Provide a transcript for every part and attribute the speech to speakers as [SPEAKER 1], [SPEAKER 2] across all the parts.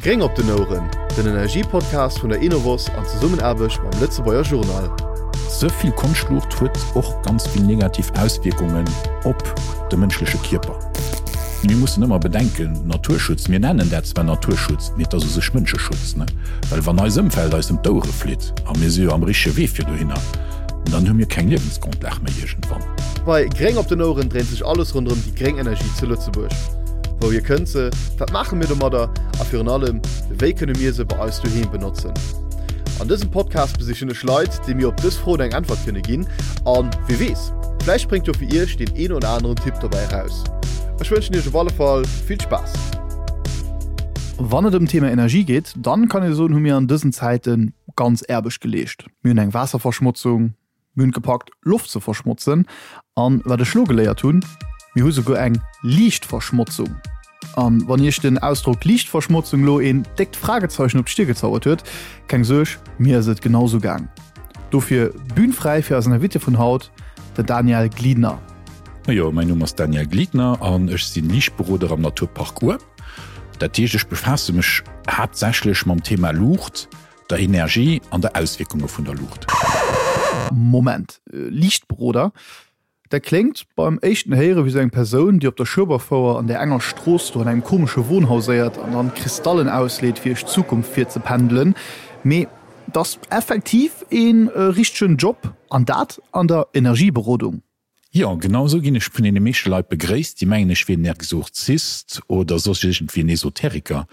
[SPEAKER 1] Gréng op den Oueren, den Energiepodcast vun der Enovos an Zesummenaarbecht mam Lëtzebuerger Journal.
[SPEAKER 2] Ze vill Konschtluucht huet och ganz vill negativ Auswierkungen op de mënschleche Kierper. Mir mussen ëmmer bedenken, Naturschutz, mir nennen dat zwar Naturschutz, mee et ass u sech Mënscheschutz, ne? Well wann eis Ëmfeld eis ëm d'Ouere flitt, a mir si jo am richtege Wee fir dohinner, dann hu mir keng Liewensgrondlag méi iergendwann.
[SPEAKER 1] Bei Gréng op den Oueren dréint sech alles ronderëm déi gréng Energie zu Lëtzebuerg. Wouhier kënnt se, wat maache mir domadder a virun allem, wéi kënne mir se bei eis doheem benotzen? An dësem Podcast besichen ech Leit, déi mir op dës Froen eng Äntwert kënne ginn an, wie weess, vläicht spréngt jo fir iech deen een oder aneren Tipp dobäi eraus. Ech wënschen iech op alle Fall vill Spaass! Wann et ëm d'Thema Energie geet, dann kann ee soen, hu mir an dësen Zäite ganz Aarbecht geleescht. Mir hunn eng Waasserverschmotzung, Mir hunn et gepackt, Loft ze verschmotzen. An wat ech lo geléiert hunn, mir hu souguer eng Liichtverschmotzung. An wann iech den Ausdrock Liichtverschmotzung lo een déckt Fragezeichen op d'Stir gezauert huet, keng Suerg, mir ass et genau sou gaang. Dofir Bühn fräi fir eisen Invité vun haut, den Daniel Gliedner.
[SPEAKER 2] Jo, mäin Numm ass Daniel Gliedner an ech sinn Liichtberoder am Naturpark Our. Dat heescht, ech befaasse mech haaptsächlech mam Thema Luucht, der Energie an der Auswierkunge vun der Luucht.
[SPEAKER 1] Moment, Liichtberoder, dat kléngt beim éischten Héiere wéi sou eng Persoun, déi op der Schueberfouer an där enger Strooss do an engem komesche Wohnhaus éiert an dann Kristallen ausleet, fir iech d'Zukunft virzependelen. Mee 't ass effektiv ee richtegen Job, an dat an der Energieberodung.
[SPEAKER 2] Jo, genau esou ginn ech vun deene meeschte Leit begréisst, déi mengen ech wier en Exorzist oder soss iergendwéi en Esoteriker.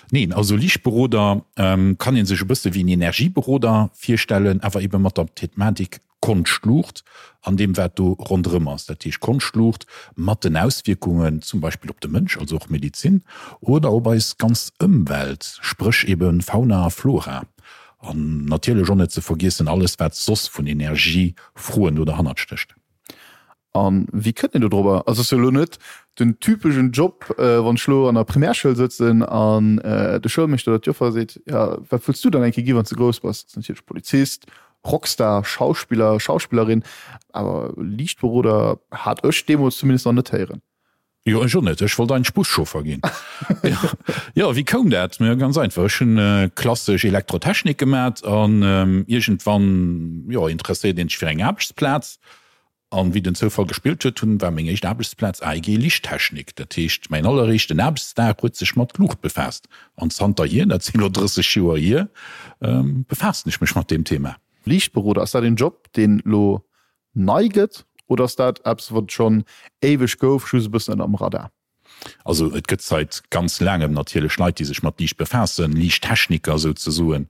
[SPEAKER 2] Neen, also Liichtberoder kann ee sech e bësse wéi en Energieberoder virstellen, awer ebe mat der Thematik Konschtluucht an deem wat do ronderëm ass. Dat heescht Konschtluucht mat den Auswierkungen zum Beispill op de Mënsch, also och Medizin, oder op eis ganz Ëmwelt, spréch ebe Fauna a Flora. An natierlech och net ze vergiessen alles wat soss vun Energiefroen do derhannert stécht.
[SPEAKER 1] A wéi kënnt een do drobber? Also ass jo elo net den typeschen Job, wann ech elo an der Primärschoul sëtzen an de Schoulmeeschter oder d'Joffer seet, jo wat wëlls du dann eng Kéier gi wann s de grouss bass? Dat ass natierlech Polizist, Rockstar, Schauspiller, Schauspillerin, awer Liichtberoder hat ech deemools zumindest nach net héieren.
[SPEAKER 2] Jo, ech och net. Ech wollt eigentlech Buschauffer ginn. Jo, wéi koum dat? Majo, ganz einfach, Ech hunn klassesch Elektrotechnik gemat an iergendwann, jo, interesséiert een sech fir eng Aarbechtsplaz. An wéi den Zoufall gespillt huet, hunn, war meng éischt Aarbechtsplaz AEG Lichttechnik. Dat heescht, mäin alleréischten Aarbechtsdag huet sech mat Luucht befaasst. An zanterhier, dat sinn elo 30 Joer hier, befaassen ech mech mat deem Thema.
[SPEAKER 1] Liichtberoder, ass dat een Job, deen elo nei gëtt oder ass dat eppes wat et schonn éiweg gouf, just e bëssen ënner dem Radar?
[SPEAKER 2] Also et gëtt seit ganz laangem natierlech Leit, déi sech mat Liicht befaassen, Liichttechniker souzesoen.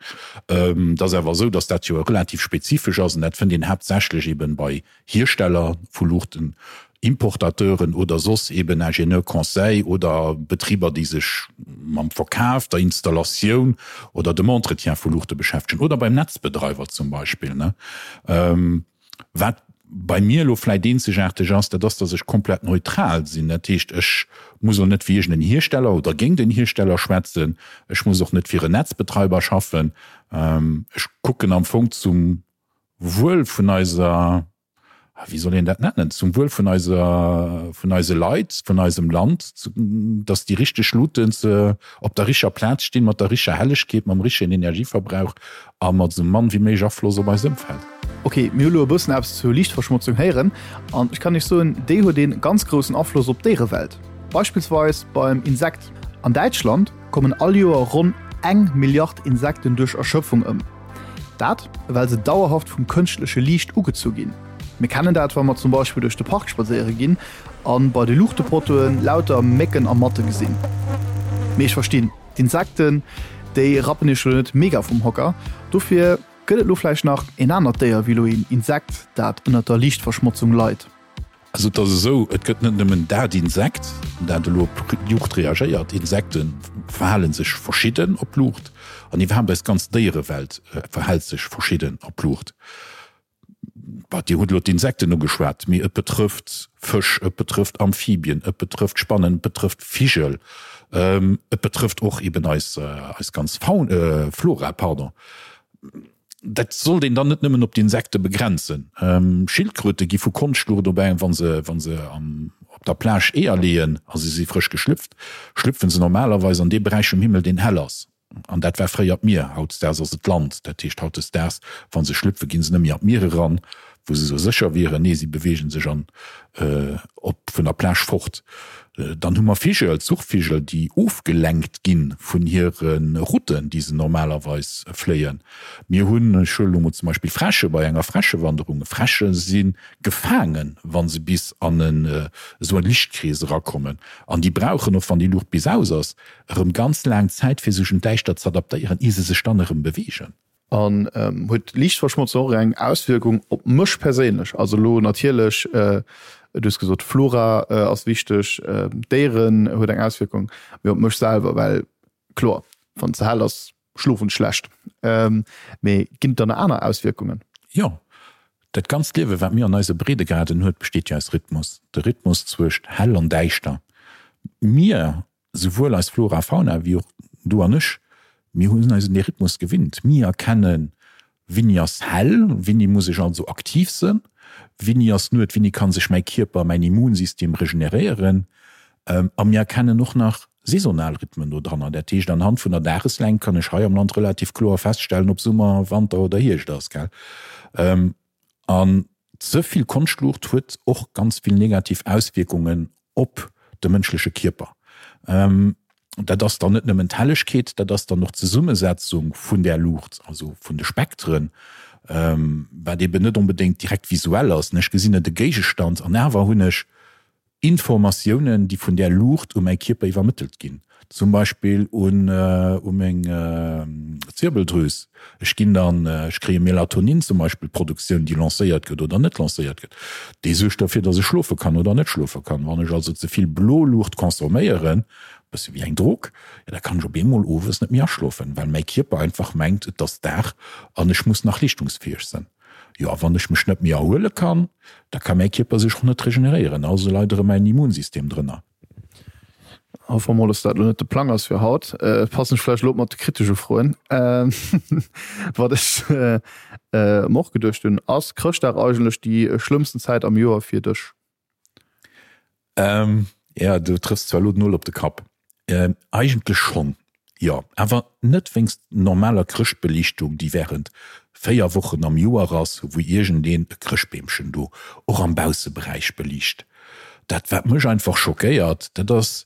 [SPEAKER 2] Et ass awer esou, datt dat jo relativ spezifesch ass an dat fënnt een haaptsächlech eben bei Hiersteller vu Luuchten, Importateuren oder soss eben Ingénieur conseil oder Betriber, déi sech mam Verkaf, der Installatioun oder dem Entretien vu Luuchte beschäftegen oder beim Netzbedreiwer zum Beispill. Wat bei mir elo vläit eenzegaarteg ass, dat ass, datt ech komplett neutral sinn. Dat heescht, ech muss elo net fir iergend en Hiersteller oder géint en Hiersteller schwätzen. Ech muss och net fir en Netzbetreiber schaffen. Ech kucken am Fong zum Wuel vun eiser, wéi soll een dat nennen, zum Wuel vun eiser, vun eise Leit, vun eisem Land, datt déi richteg Luuten ze op der richer Plaz stinn, mat der richer Hellegkeet, mam richtegen Energieverbrauch a mat esou mann wéi méiglech Afloss op eist Ëmfeld.
[SPEAKER 1] Ok, mir hu lo e bëssen eppes zur Liichtverschmotzung héieren an ech kann iech soen, déi huet een ganz groussen Afloss op d'Déierewelt. Beispillsweis beim Insekt. An Däitschland kommen all Joer ronn eng Milliard Insekten duerch Erschöpfung ëm. Dat well se dauerhaft vum kënschtleche Liicht ugezu ginn. Mir kennen dat, wa mer zum Beispill duerch de Park spadséiere ginn a bei de Luuchtepottoen lauter Mécken a Matte gesinn. Mee ech verstinn, d'Insekten, déi rappen iech lo net mega vum Hocker. Dofir gëtt et lo vläicht nach een anert Déier wéi lo een Insekt, dat ënnert der Liichtverschmotzung leit.
[SPEAKER 2] Also et ass esou, et gëtt net nëmmen dat Insekt, dat elo op Luucht reagéiert. Insekte verhale sech verschidden op Luucht an iwwerhaapt eis ganz Déierewelt verhält sech verschidden op Luucht. Bah, Dir hutt elo d'Insekten ugeschwat, mee et betrëfft Fësch, et betrëfft Amphibien, et betrëfft Spannen, et betrëfft Vigel, et betrëfft och eben eis, eis ganz Faun, Flora, pardon. Dat sollt een dann net nëmmen op d'Insekte begrenzen. Schildkröte gi vu Konschtluucht op eng, wa se, wa se am. op der Plage Eeër leeën a se si frësch geschlüpft, schlüpfe se normalerweis an dee Beräich vum Himmel, deen hell ass. An dat war fréier d'Mier, hautdesdaags ass et d'Land. Dat heescht, hautdesdaags, wa se schlüpfen, gi se net méi an d'Mier eran, wou se esou sécher wieren. Nee, si beweege sech an op vun der Plage fort. Dann hu mer Vigel, Zuchvigel, déi ofgelenkt gi vun hire Routen, déi se normalerweis fléien. Mir hunn, ech huelen elo mol zum Beispill Fräsche bei enger Fräschewanderung. Fräsche si gefaangen, wa se bis an esou e Lichtkrees erakommen. An déi brauchen, och wann déi Luucht bis aus ass, erëm ganz laang Zäit fir sech un d'Däischtert z'adaptéieren, ier se sech dann erëm beweegen.
[SPEAKER 1] An huet Liichtverschmotzung och eng Auswierkung op mech perséinlech? Also elo natierlech, du hues gesot d'Flora ass wichteg, d'Déieren huet eng Auswierkung, mee op mech selwer, well kloer, wann et ze hell ass, schlofen ech schlecht. Mee ginn et dann nach aner Auswierkungen?
[SPEAKER 2] Jo, dat ganzt Liewe wat mir an eise Breedegraden huet, besteet jo aus Rhythmus. De Rhythmus zwëscht hell an däischter. Mir Souwuel eis Flora a Fauna wéi och du an ech, mir hunn eis un dee Rhythmus gewinnt. Mir erkennen, Wéini ass hell, wéini muss ech also aktiv sënn, wéini ass Nuet, wéini kann sech mäi Kierper, mäin Immunsystem regeneréieren. A mir erkennen och nach saisonal Rhythmen do dranner. Dat heescht, anhand vun der Dageslängt kann ech hei am Land relativ kloer feststellen, ob Summer, Wanter oder Hierscht ass, gell. An ze vill Konschtluucht huet och ganz vill negativ Auswierkungen op de mënschleche Kierper. Dat ass dann net nëmmen d'Hellegkeet, dat ass dann och d'Zesummesetzung vun där Luucht, also vun de Spektren, wat eben net onbedéngt direkt visuell ass. Ech gesinn net e Géigestand an awer hunn ech Informatiounen, déi vun där Luucht u mäi Kierper iwwermëttelt ginn, zum Beispill un u meng Zirbeldrüs. Ech ginn dann, ech kréie Melatonin zum Beispill, Produktioun, déi lancéiert gëtt oder net lancéiert gëtt. Déi suergt derfir, datt ech schlofe kann oder net schlofe kann. Wann ech also ze vill blo Luucht consomméieren, e bësse wéi eng Drog, jo da kann ech op eemol owes net méi aschlofen, well mäi Kierper einfach mengt, et ass Dag an ech muss nach leeschtungsfäeg sinn. Jo, a wann ech mech net méi erhuele kann, da ka mäi Kierper sech och net regeneréieren, also leit erëm mäin Immunsystem drënner.
[SPEAKER 1] Hoffe mer mol, dass dat elo net de Plang ass fir haut. Passen ech vläicht elo op mat de kritesche Froen. Wat ech mer och geduecht hunn, Ass Chrëschtdag eigentlech déi schlëmmsten Zäit am Joer fir dech?
[SPEAKER 2] Ähm, ja, du trëffs zwar elo den Nol op de Kapp. Ähm, eigentlech schonn, jo. Awer net wéinst normaler Chrëschtbeliichtung, déi wärend 4 Wochen am Joer ass, wou iergendeen e Chrëschtbeemchen do och am Bausseberäich beliicht. Dat wat mech einfach schockéiert, dat ass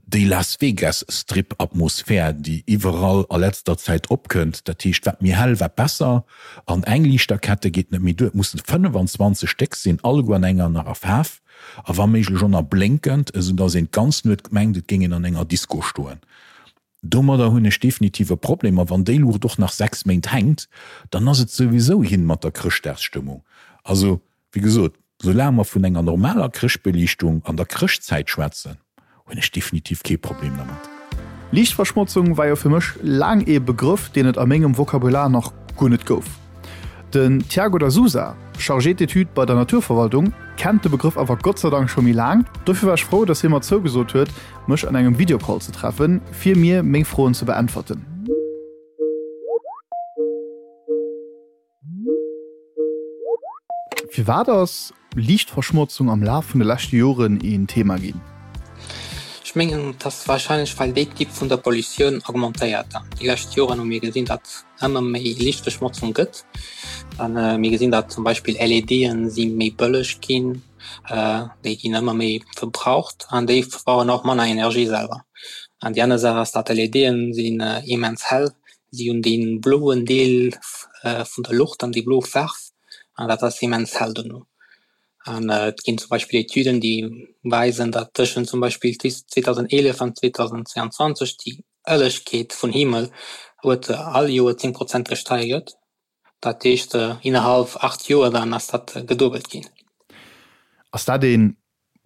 [SPEAKER 2] Déi Las Vegas Strip Atmosphär déi iwwerall a letzter Zäit opkënnt, dat heescht wat méi hell wat besser, an eng Liichterkette geet net méi duer, et mussen 25 Stéck sinn, alleguer an enger anerer Faarf a wa méiglech och nach blénkend, esou dass een d'ganz Nuet mengt et géing een an enger Disco stoen. Domadder hunn ech definitiv e Problem, a wann déi Luucht och nach 6 Méint hänkt, dann ass et souwisou hin mat der Chrëschtdagsstëmmung. Also Wéi gesot, soulaang mer vun enger normaler Chrëschtbeliichtung an der Chrëschtzäit schwätzen, hunn ech definitiv kee Problem dermat.
[SPEAKER 1] Liichtverschmotzung war jo fir mech laang ee Begrëff, deen et a mengem Vokabular nach guer net gouf. Den Tiago da Sousa, Chargé d'études bei der Naturverwaltung, kennt de Begrëff awer Gott sei Dank scho méi laang. Dofir war ech frou, dass hie mer zougesot huet, mech an engem Videocall ze treffen, fir mir meng Froen ze beäntwerten. Firwat ass Liichtverschmotzung am Laf vun de leschte Joren een Thema ginn?
[SPEAKER 3] Ech mengen, et ass warscheinlech, well déi Typ vun der Pollutioun augmentéiert. Déi lescht Joren hu mir gesinn, datt ëmmer méi Liichtverschmotzung gëtt. A mir gesinn, datt zum Beispill LEDen si méi bëlleg ginn, déi ginn ëmmer méi verbraucht an déi verbrauchen och manner Energie selwer. An déi aner Saach ass, datt LEDen sinn immens hell Si hunn dee bloen Deel vun der Luucht an déi blo Faarf an dat ass immens hell dono. An et ginn zum Beispill Etüden, déi weisen, datt tëschent zum Beispill 2011 an 2022 déi Hellegkeet vun Himmel huet all Joer 10 Prozent gesteigert. Dat heescht innerhalb 8 Joer dann ass dat geduebelt ginn.
[SPEAKER 1] Ass dat ee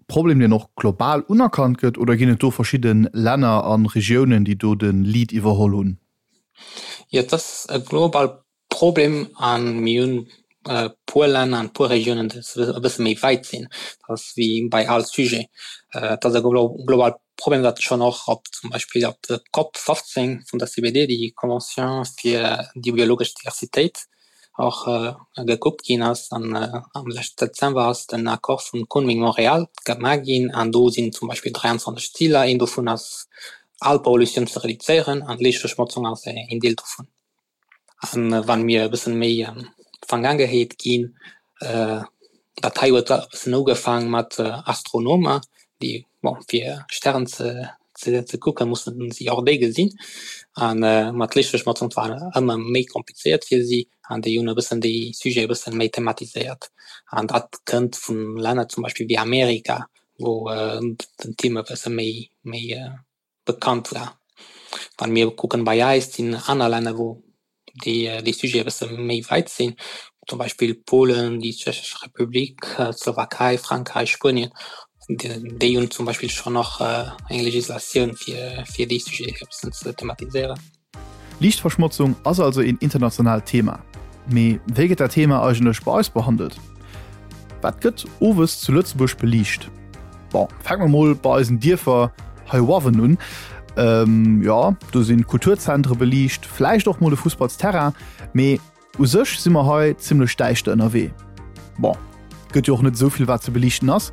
[SPEAKER 1] Problem deen och global unerkannt gëtt oder ginn et do verschidde Länner a Regiounen, déi do de Lead iwwerholl hunn?
[SPEAKER 3] Jo, et ass e global Problem a mir hunn e puer Länner an e puer Regiounen, déi e bësse méi wäit sinn. Dat ass wéi bei all Sujet. Et ass e global Problem, dat schonn och op zum Beispill op der Cop 15 vun der CBD, déi Convention fir déi biologesch Diversitéit. och gekuckt ginn ass. An am leschten Dezember ass den Accord vun Kunming-Montréal gemaach ginn an do sinn zum Beispill 23 Ziler. Een dovun ass all Pollutioun ze reduzéieren an d'Liichtverschmotzung ass een Deel dovun. An wann mir e bëssen méi an d'Vergaangenheet ginn, dat hei huet e bëssen ugefaang mat Astronomer, déi bon fir Stären ze ze kucken, mussen si och déi gesinn. An mat Liichtverschmotzung war ëmmer méi komplizéiert fir si an déi hunn e bëssen déi Sujet e bëssen méi thematiséiert. An dat kënnt vun Länner zum Beispill wéi Amerika, wou den Thema e bësse méi méi bekannt war. Wann mir kucken bei eis sinn aner Länner wou déi déi Sujete e bësse méi weit sinn, zum Beispill Polen, déi Tschechesch Republik, d'Slowakei, Frankräich, Spuenien, déi hunn zum Beispill schonn och eng Legislatioun fir fir déi Sujete e bëssen ze thematiséieren.
[SPEAKER 1] Liichtverschmotzung ass also een internationaalt Thema. Mee wéi gëtt dat Thema eigentlech bei eis behandelt? Wat gëtt owes zu Lëtzebuerg beliicht? Bon, fänke mer mol bei eisen Dierfer heiuawen un. Ähm, jo, do sinn d'Kulturzentre beliicht, vläicht och mol e Fussballsterrain, mee U sech si mer hei zimmlech däischter ënnerwee. Bon, gëtt jo och net esou vill wat ze beliichten ass.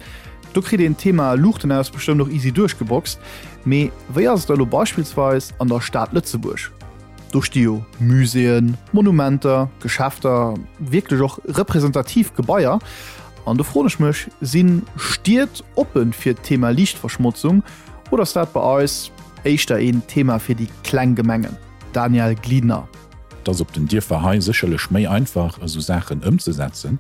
[SPEAKER 1] Do kritt een d'Thema Luuchten aus bestëmmt och easy duerchgeboxt. Mee wéi ass et da lo beispillsweis an der Stad Lëtzebuerg? Do sti jo Muséeën, Monumenter, Geschäfter, wierklech och representativ Gebaier. An do froen ech mech, si Stied oppe fir d'Thema Liichtverschmotzung oder ass dat bei eis éischter een Thema fir déi kleng Gemengen? Daniel Gliedner.
[SPEAKER 2] Et ass op den Dierfer hei sécherlech méi einfach, esou Saachen ëmzesetzen.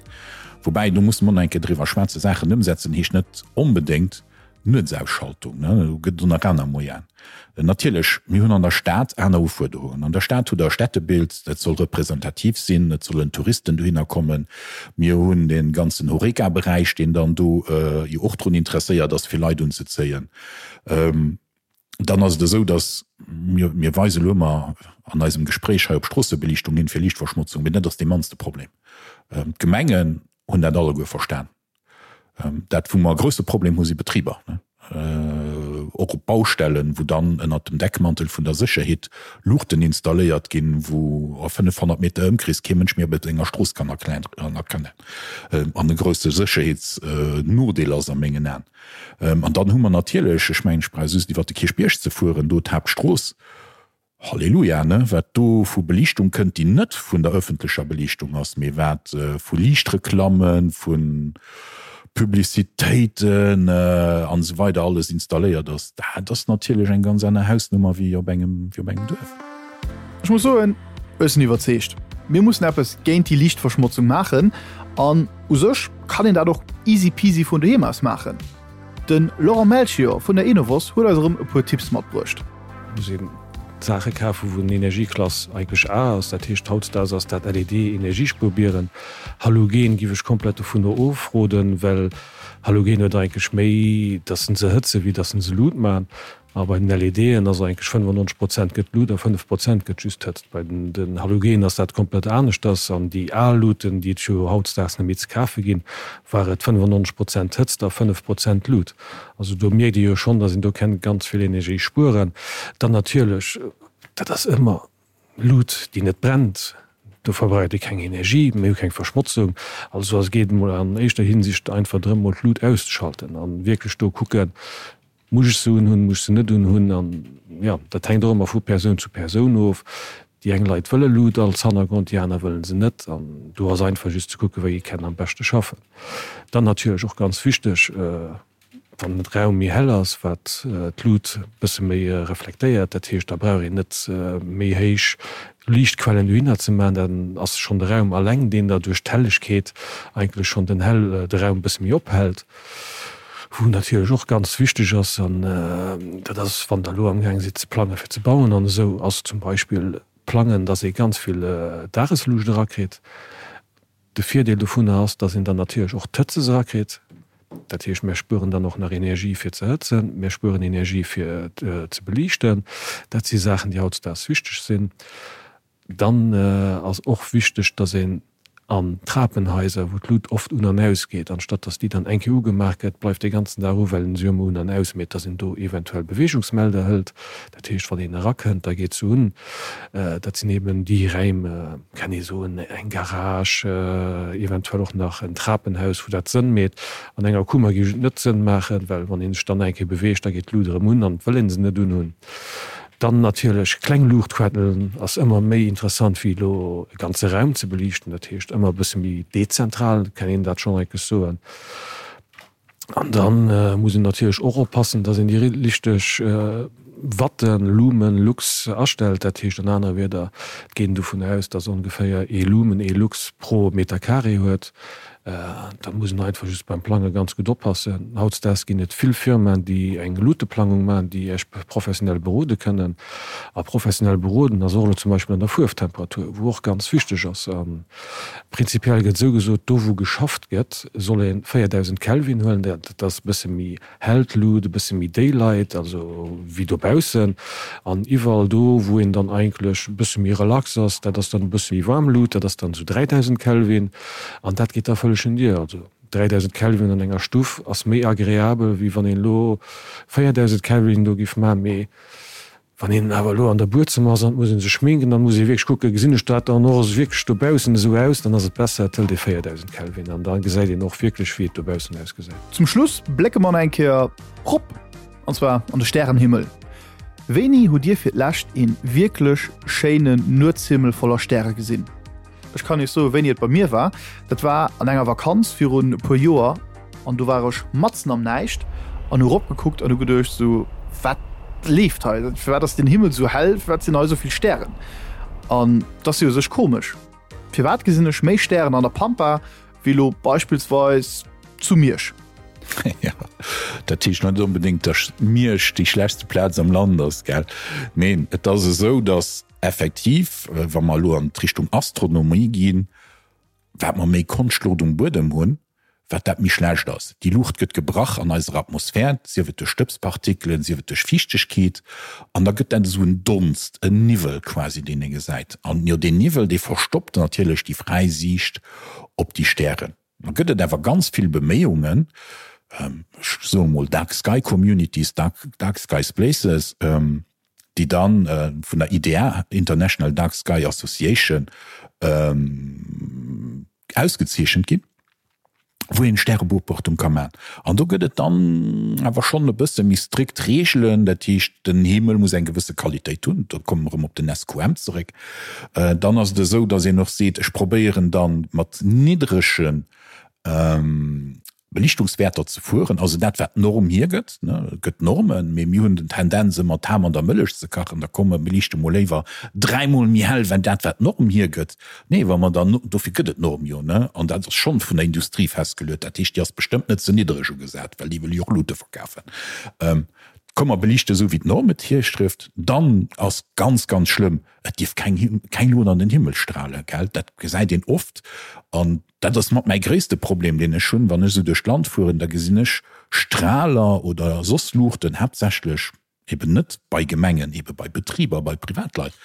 [SPEAKER 2] Woubäi, do musse mer och nach eng Kéier driwwer schwätzen, Saachen ëmsetzen heescht net onbedéngt Nuetsausschaltung. Do gëtt et och nach aner Moyenen. Natierlech, mir hunn an der Stad aner Ufuerderungen. An der Stad hutt Der e Städtebild, dat soll representativ sinn, et sollen Touristen dohinner kommen. Mir hunn dee ganzen Horeca-Beräich, deen dann do jo och drun interesséiert ass, fir Leit unzezéien. Dann ass et esou, datt mir, mir weise elo ëmmer an eisem Gespréich hei op Stroossebeliichtung hin fir Liichtverschmotzung, mee dat ass dee mannste Problem. D'Gemengen hunn dat alleguer verstan. Dat, wou mer e grousse Problem hu si Betriber, och op Baustellen, wou dann ënnert dem Deckmantel vun der Sécherheet Luuchten installéiert ginn, wou a 500 Meter Ëmkrees kee Mënsch méi op enger Strooss kann erkennen an e grousse Sécherheetsnodeel ass a mengen Aen. An dann hu mer natierlech, ech mengen, ech brauch just iwwert de Kierchbierg ze fueren, do d'Haaptstrooss, Halleluja, ne, wat do vu Beliichtung kënnt, déi net vun der öffentlecher Beliichtung ass, mee wat vu Liichtreklammen, vu Publicitéiten an esou weider alles installéiert ass, dat ass natierlech eng ganz aner Hausnummer wéi op engem, wéi op engem Duerf.
[SPEAKER 1] Ech muss soen, ech sinn iwwerzeegt, mir mussen eppes géint déi Liichtverschmotzung maachen an U sech kann een dat och easy peasy vun doheem aus maachen. De Laurent Melchior vun der Enovos huet eis erëm e puer Tipps matbruecht.
[SPEAKER 4] Muss een Saache kafen, wou den Energieklass eigentlech A ass. Dat heescht, hautdesdaags ass dat LED-Energiespuerbieren. Halogen giff ech komplett dovunner ofroden, well Halogen huet eigentlech méi, dass se hëtzen, wéi dass se Lut man. A bei den LEDen ass eigentlech 95 Prozent gëtt Lut a 5 Prozent gëtt just Hëtzt. Bei den Halogenen ass dat komplett aneschters. An déi al Luten, déi et jo hautdesdaags net méi ze kafe ginn, war et 95 Prozent Hëtzt a 5 Prozent Lut. Also do mierkt ee jo schonn, datt een do kennt ganz vill Energie spueren. Dann natierlech, dat ass ëmmer Lut, déi net brennt, do verbraucht ee keng Energie, mir hu keng Verschmotzung. Also et geet emol an éischter Hinsicht einfach drëm, mol d'Lut auszeschalten a wierklech do kucken, Muss ech se unhunn, muss ech se net unhunn? An jo, dat hänkt och ëmmer vu Persoun zu Persoun of. Déi eng Leit wëlle Lut als Hannergrond, déi aner wëlle se net. An do ass einfach just ze kucken, wéi ee kenn am beschte schaffen. Dann natierlech och ganz wichteg, wann de Raum méi hell ass, wat d'Lut e bësse méi reflektéiert, dat heescht, da brauch een net méi héich Liichtquellen dohinner ze maachen, dann ass schonn de Raum alleng, deen da duerch d'Hellegkeet eigentlech schonn den hell de Raum e bësse méi ophält. Wou natierlech och ganz wichteg ass, an dat ass, wann Der elo amgaang sidd ze plangen, fir ze bauen an esou, ass zum Beispill plangen, dass ee ganz vill Dagesluucht erakritt. De Virdeel dovunner ass, dass een dann natierlech och d'Hëtzes erakritt. Dat heescht, mir spueren dann och nach Energie fir ze hëtzen, mir spueren Energie fir ze beliichten. Dat si Saachen, déi hautdesdaags wichteg sinn. Dann ass och wichteg, dass een. An Trapenhaiser, wou d'Lut oft un an aus geet, anstatt dass déi dann eng Kéier ugemaach gëtt, bleift dee ganzen Dag u, well en se jo ëmmer un an aus mécht, dass een do eventuell Beweegungsmelder hëlt. Dat heescht, wann een erakënnt, da geet se un. Dat sinn eben déi Räim, kann ee soen, eng Garage, eventuell och nach en Trapenhaus, wou dat Sënn meet. An enger Kummer géif et net Sënn maachen, well wann ee sech dann eng Kéier beweegt, da geet d'Lut erëm un an et wëll ee se net unhunn. Dann natierlech kleng Luuchtquellen ass ëmmer méi interessant wéi elo e ganze Raum ze beliichten. Dat heescht ëmmer e bësse méi dezentral, kann een dat schonn enkesch soen. An dann muss een natierlech och oppassen, dass een déi richteg Watten, Lumen, Lux astellt. Dat heescht an anere Wierder, et geet een dovun aus, dass ongeféier ee Lumen, ee Lux pro Meter carré huet. Da muss een einfach just beim Plange ganz gutt oppassen. Hautdesdaags ginn et vill Firmaen, déi eng Luteplangung maachen, déi Iech professionell berode kënnen. A professionell beroden ass och elo zum Beispill an der Fuerftemperatur, wou och ganz wichteg ass. A prinzipiell gëtt esou gesot, do wou geschafft gëtt, soll ee 4.000 Kelvin huelen. Dat ass e bësse méi hell d'Lut, e bësse méi Daylight, also wéi dobaussen. An iwwerall do, wou een dann eigentlech e bësse méi relax ass, dat ass dann e bësse méi waarm Lut, dat ass dann esou 3000 Kelvin. An dat geet da vëlleg un Dir. Also 3000 Kelvin an enger Stuff ass méi agreabel, wéi wann een elo 4000 Kelvin do giff maachen. Mee Wann een awer elo an der Buedzëmmer ass an et muss ee sech schminken, dann muss ee wierklech kucken, gesinn ech dat dann och wierklech dobaussen esou aus? Dann ass et besser, et hëlt ee 4000 Kelvin an da gesäit een och wierklech, wéi et dobaussen ausgesäit.
[SPEAKER 1] Zum Schluss blécke mer nach eng Kéier rop, an zwar an de Stärenhimmel. Wéini hutt Dir fir d'lescht een wierklech schéinen Nuetshimmel voller Stäre gesinn? Ech kann iech soen, wéini et bei mir war. Dat war an enger Vakanz virun e puer Joer an do war ech matzen am Näischt an hu ropgekuckt an hu geduecht sou, wat leeft hei? Firwat ass den Himmel sou hell? Firwat sinn hei sou vill Stären? An et ass jo u sech komesch. Firwat gesinn ech méi Stären an der Pampa wéi elo beispillsweis zu Miersch?
[SPEAKER 2] Jo, dat heescht net onbedéngt, datt Miersch déi schlechtste Plaz am Land ass, gell? Neen, et ass esou, datt Effektiv, wa mer elo an d'Richtung Astronomie ginn, wat mer méi Konschtluucht um Buedem hunn, wat dat méi schlecht ass. Déi Luucht gëtt gebrach an eiser Atmosphär, sief et duerch Stëbspartikelen, sief et duerch Fiichtegkeet, an da gëtt dat esou en Donst, en Niwwel quasi, deen ee gesäit. An jo, deen Niwwel, dee verstoppt natierlech déi fräi Siicht op déi Stären. Da gëtt et awer ganz vill Beméiungen, ech soe mol Dark Sky Communities, Dark Skies Places, déi da vun der IDA, International Dark Sky Association, ausgezeechent ginn, wou een Stärebeobachtung ka maachen. An do gëtt et dann awer schonn e bësse méi strikt Reegelen, dat heescht, den Himmel muss eng gewësse Qualitéit hunn, do komme mer erëm op den SQM zeréck. Dann ass et esou, datt een och seet, ech probéieren da mat niddrege Belichtungswäerter ze fueren, also dat wat d'Norm hiergëtt. Et gëtt Normen, mee mir hunn den Tendenz ëmmer d'Ham an der Mëllech ze kachen, da komm mer beliichte mol léiwer dräimol méi hell wei dat wat d'Norm hiergëtt. Nee, wa mer dann, dofir gëtt et d'Norm jo, ne, an dat ass schonn vun der Industrie festgeluet, dat heescht déi ass bestëmmt net ze niddereg ugesat, well déi wëll jo och Lute verkafen. Komm mer beliichte esou wéi d'Norm et hirschrifft, dann ass ganz, ganz schlëmm, et dierf keng, keng Lut an den Himmel strahlen, gell, dat gesäit een oft an dat ass mat mäi gréisste Problem deen ech hunn, wann ech esou duerch d'Land fueren, da gesinn ech Strahler oder soss Luuchten, haaptsächlech eben net bei Gemengen, ebe bei Betriber, bei Privatleit,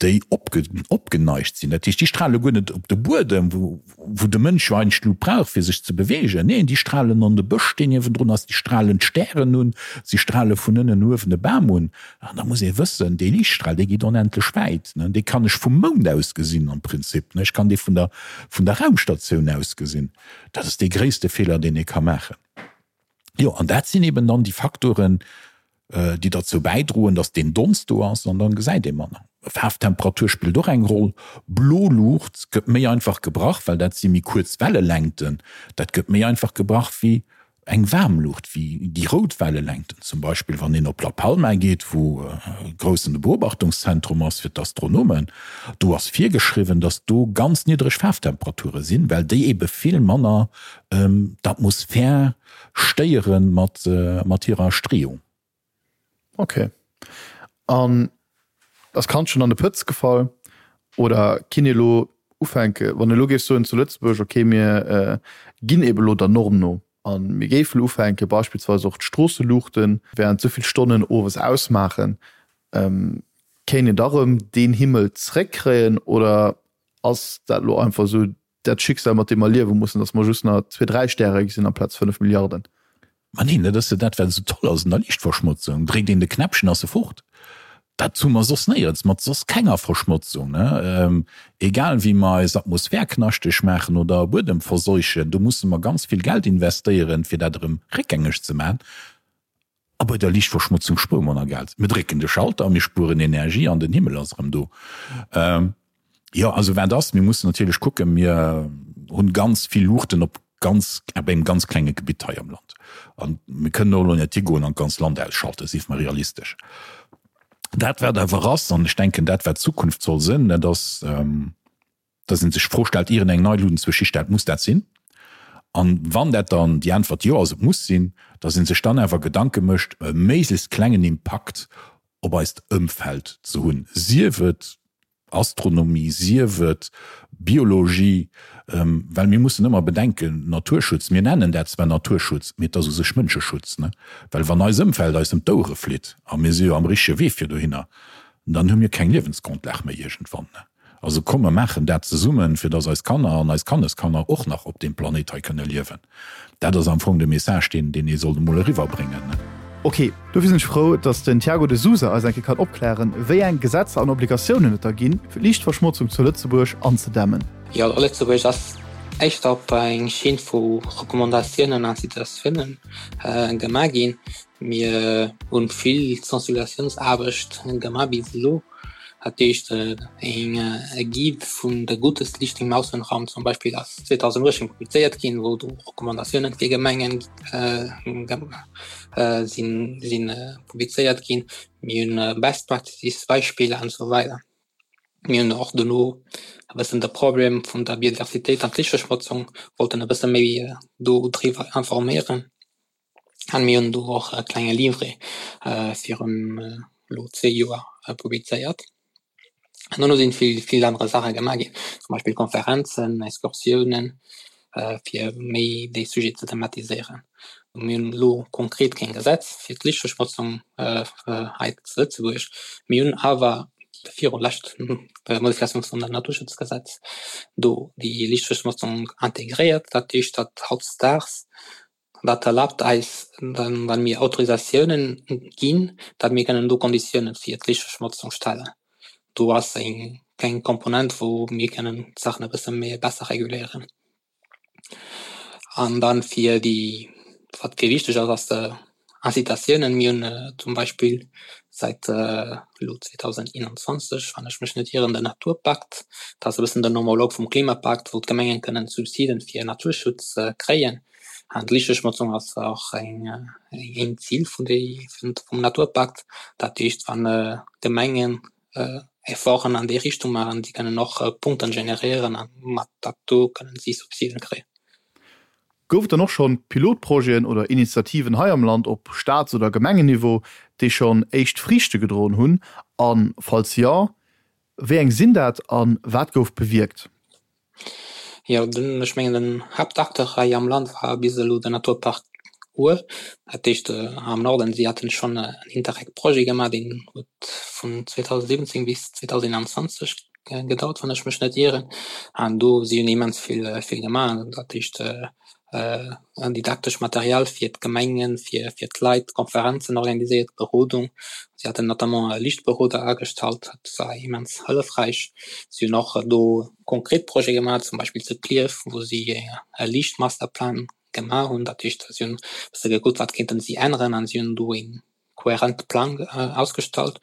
[SPEAKER 2] déi opgeneigt sinn. Dat heescht, déi strale guer net op de Buedem, wou de Mënsch jo eigentlech d'Lut brauch, fir sech ze beweegen. Neen, déi stralen an de Bësch, deen niewendrun ass, déi stralen d'Stären un, si strale vun ënnen uewen e Bam un. An da muss ee wëssen, dee Liichtstral, dee geet onendlech wäit. Dee kann ech vum Mound aus gesinn am Prinzip. Ech kann dee vun der, vun der Raumstatioun aus gesinn. Dat ass dee gréisste Feeler, deen ee ka maachen. Jo, an dat sinn eben dann déi Faktoren, déi derzou bäidroen, datt deen Donst do ass an dann gesäit ee manner. Faarftemperatur spillt och eng Roll. Blo Luucht gëtt méi einfach gebrach, well dat si méi kuerz Wellelängten. Dat gëtt méi einfach gebrach wéi eng waarm Luucht, wéi déi rout Wellelängten. Zum Beispill wann een op La Palma geet, wou e groussen Beobachtungszentrum ass fir d'Astronomen, do ass virgeschriwwen, datt do ganz niddreg Faarftemperature sinn, well déi ebe vill manner d'Atmosphär stéiere mat mat hirer Streeung.
[SPEAKER 1] Ok. An ass d'Kand schonn an de Pëtz gefall oder kinn ee lo ufänke wann ee lo géif soen zu Lëtzebuerg, ok mir ginn ebe lo der Norm no a mir géife lo ufänke beispillsweis och d'Stroosseluuchte während souvill Stonnen owes ausmaachen, kéint een da rëm deen Himmel zréckkréien oder ass dat lo einfach esou? dat Schicksal, mat deem mer liewe mussen, datt mer just nach zwee, dräi Stäre gesinn amplaz 5 Milliarden.
[SPEAKER 2] Ma neen, dat ass jo dat, wat esou toll ass un der Liichtverschmotzung, Dréckt een de Knäppchen, ass e fort. Dat hu mer soss néierens, mat soss kenger Verschmotzung, ne? Egal wéi mer eis Atmosphär knaschteg maachen oder Buedem verseuchen, do musse mer ganz vill Geld investéieren, fir dat erëm réckgängeg ze maachen. A bei der Liichtverschmotzung spuere mer nach Geld. Mir drécken de Schalter, mir spueren Energie an den Himmel ass erëm do. Jo, also wat ass, mir mussen natierlech kucken, mir hunn ganz vill Luuchten op ganz, op engem ganz klenge Gebitt hei am Land. An mir kënnen och elo net higoen an d'ganz Land ausschalten, sief mer realistesch. Dat wat awer ass, an ech denken dat wat d'Zukunft soll sinn, dat ass, dass ee sech d'Fro stellt, ier een eng nei Luutenzwësch histellt, muss dat sinn? An wann dat dann déi Äntwert jo ass, et muss sinn, dass ee sech dann awer Gedanke mécht, e méiglechst klengen Impakt op eist Ëmfeld ze hunn, sief et Astronomie, sief et Biologie, well mir mussen ëmmer bedenken, Naturschutz, mir nennen dat zwar Naturschutz, mee et ass u sech Mënscheschutz, ne? Well wann eis Ëmfeld eis ëm d'Ouere flitt, a mir si jo am richtege Wee fir dohinner, dann hu mir keng Liewensgrondlag méi iergendwann, ne? Also komm mer maachen dat zesummen, fir dass eis Kanner an eis Kanneskanner och nach op deem Planéit hei kënne liewen. Dat ass am Fong de Message, deen deen ee sollt emol eriwwerbréngen.
[SPEAKER 1] Ok, dofir sinn ech frou, dass den Tiago de Sousa eis eng Kéier kann opklären, wéi eng Gesetzer an Obligatiounen et da ginn, fir d'Liichtverschmotzung zu Lëtzebuerg anzedämmen.
[SPEAKER 3] Jo, Lëtzebuerg ass éischter op eng Schinn vu Recommandatiounen an Incitatiounen gemaach ginn. Mir hunn vill Sensibilisatiounsaarbecht gemaach bis elo. Dat heescht eng Guide vun der Gutes Licht im Außenraum zum Beispill ass 2018 publizéiert ginn, wou do Recommandatiounen fir Gemengen sinn sinn publizéiert ginn. Mir hunn Best Practices Beispiller an esou weider. Mir hunn och dono e bëssen de Problem vun der Biodiversitéit an d'Lichtverschmotzung wollten e bësse méi do driwwer informéieren. An mir hunn do och e klenge Livret virun elo zwee Joer publizéiert. An dono sinn vill, vill anere Saache gemaach ginn, zum Beispill Konferenzen, Excursiounen, fir méi dee Sujet ze thematiséieren. Mir hunn elo konkret keng Gesetz fir d'Lichtverschmotzung hei zu Lëtzebuerg. Mir hunn awer viru lescht Modifikatioun vum Naturschutzgesetz do déi Lichtverschmotzung integréiert. Dat heescht, datt hautdesdaags Dat erlaabt eis, wa mir Autorisatiounen ginn, datt mir kënnen do Konditiounen fir d'Lichtverschmotzung stellen. Do ass eng kleng Komponent, wou mir kënnen d'Saachen e bësse méi besser reguléieren. An dann fir déi, wat fir wichteg ass, ass de Incitatiounen. Mir hunn zum Beispill säit elo 2021, wann ech mech net ieren, den Naturpakt. Dat ass e bëssen den Homolog vum Klimapakt, wou d'Gemengen kënnen Subsiden fir Naturschutz kréien. An d'Lichtverschmotzung ass och eng een Zil vun déi vum Naturpakt. Dat heescht, wann d'Gemengen Efforten an déi Richtung maachen, déi kënnen och Punkten generéieren a mat dat do kënnen si Subsiden kréien.
[SPEAKER 1] Gouf et dann och schonn Pilotprojeten oder Initiativen hei am Land op Staats oder Gemengenniveau, déi schonn éischt Friichte gedroen hunn? A falls jo, wéi eng sinn dat a wat gouf bewierkt?
[SPEAKER 3] Jo, den, ech mengen den Haaptacteur hei am Land war bis elo den Naturpark Our. Dat heescht am Norden, si haten schonn en Interreg-Projet gemaach, deen huet vun 2017 bis 2021 gedauert, wann ech mech net ieren. An do si hunn immens vill vill gemaach. Dat heescht didaktesch Material fir d'Gemengen, fir fir d'Leit, Konferenzen organiséiert, Berodung. Si haten notamment e Lichtberoder agestallt, dat war immens hëllefräich. Si hunn och do konkret Projete gemaach, zum Beispill zu Klierf, wou si e Liichtmasterplan gemaach hunn. Dat heescht, si hunn e bësse gekuckt, wat kéinten si änneren an si hunn do ee kohärente Plang ausgestallt.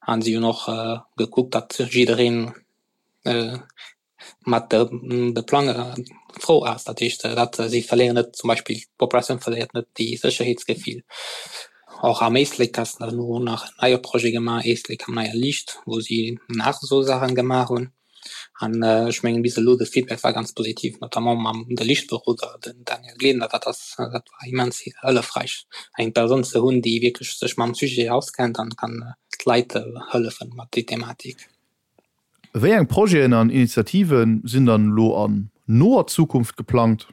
[SPEAKER 3] An si hunn och gekuckt, datt jiddereen mat de Plang frou ass. Dat heescht, dat si verléieren net zum Beispill d'Populatioun verléiert net déi Sécherheetsgefill. Och am Éislek ass elo nach en neie Projet gemaach, Éislek am neie Liicht, wou si nach esou Saachen gemaach hunn. An ech mengen bis elo de Feedback war ganz positiv, notamment mam de Lichtberoder, den Daniel Glesener, dat ass dat war immens hëllefräich eng Persoun ze hunn, déi wierklech sech mam Sujet auskennt an kann d'Leit hëllefen mat déi Thematik.
[SPEAKER 1] Wéi eng Projeten an Initiative sinn dann elo an noer Zukunft geplangt?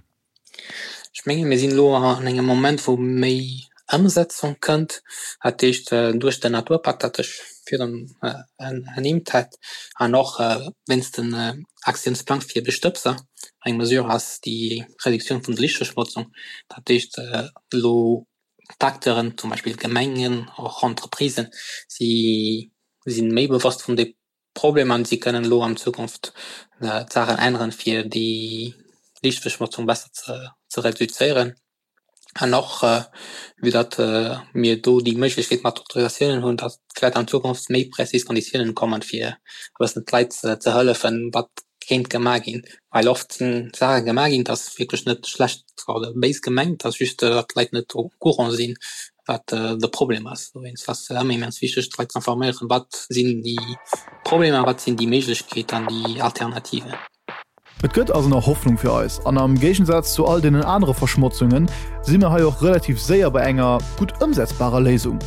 [SPEAKER 3] Ech menge mir sinn elo an engem Moment, wou méi. Ëmsetzung kënnt. Dat heescht duerch den Naturpakt, dat ech virdrun ernimmt hat, an och wéinst den Aktiounsplang fir Bestëbser eng Mesure ass, déi Reduktioun vun der Lichtverschmotzung, dat heescht elo d'Acteuren, zum Beispill d'Gemengen, och Entreprisen, si sinn méi bewosst vun de Problem an si kënnen elo an Zukunft d'Saachen änneren, fir déi Liichtverschmotzung besser ze reduzéieren. An och vue datt mir do déi Méiglechkeet mat Autorisatiounen hunn, datt vläicht an Zukunft méi präzis Konditiounen kommen, fir e bëssen d'Leit ze hëllefen, wat kéint gemaach ginn. Well oft sinn Saache gemaach ginn, dat ass wierklech net schlecht oder béis gemengt, dat ass just, datt d'Leit net au courant sinn, wat de Problem ass. Dowéinst ass et ëmmer immens wichteg, d'Leit ze informéieren, wat sinn déi Problemer, wat sinn déi Méiglechkeeten an déi Alternativen.
[SPEAKER 1] Et gëtt also nach Hoffnung fir eis an am Géigensaz zu all deenen anere Verschmotzunge si mir hei och relativ séier bei enger gutt ëmsetzbarer Léisung.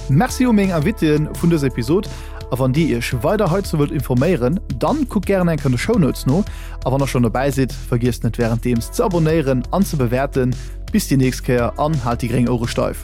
[SPEAKER 1] Merci u meng Invitéen vun dëser Episod a wann dir iech weider heizou wëllt informéieren, dann kuckt gären eng Kéier an de Shownotes no a wann der schonn dobäi sidd, vergiesst net wärenddeems ze abonéieren an ze bewäerten. Bis déi nächst Kéier an haalt déi gréng Ouere steif.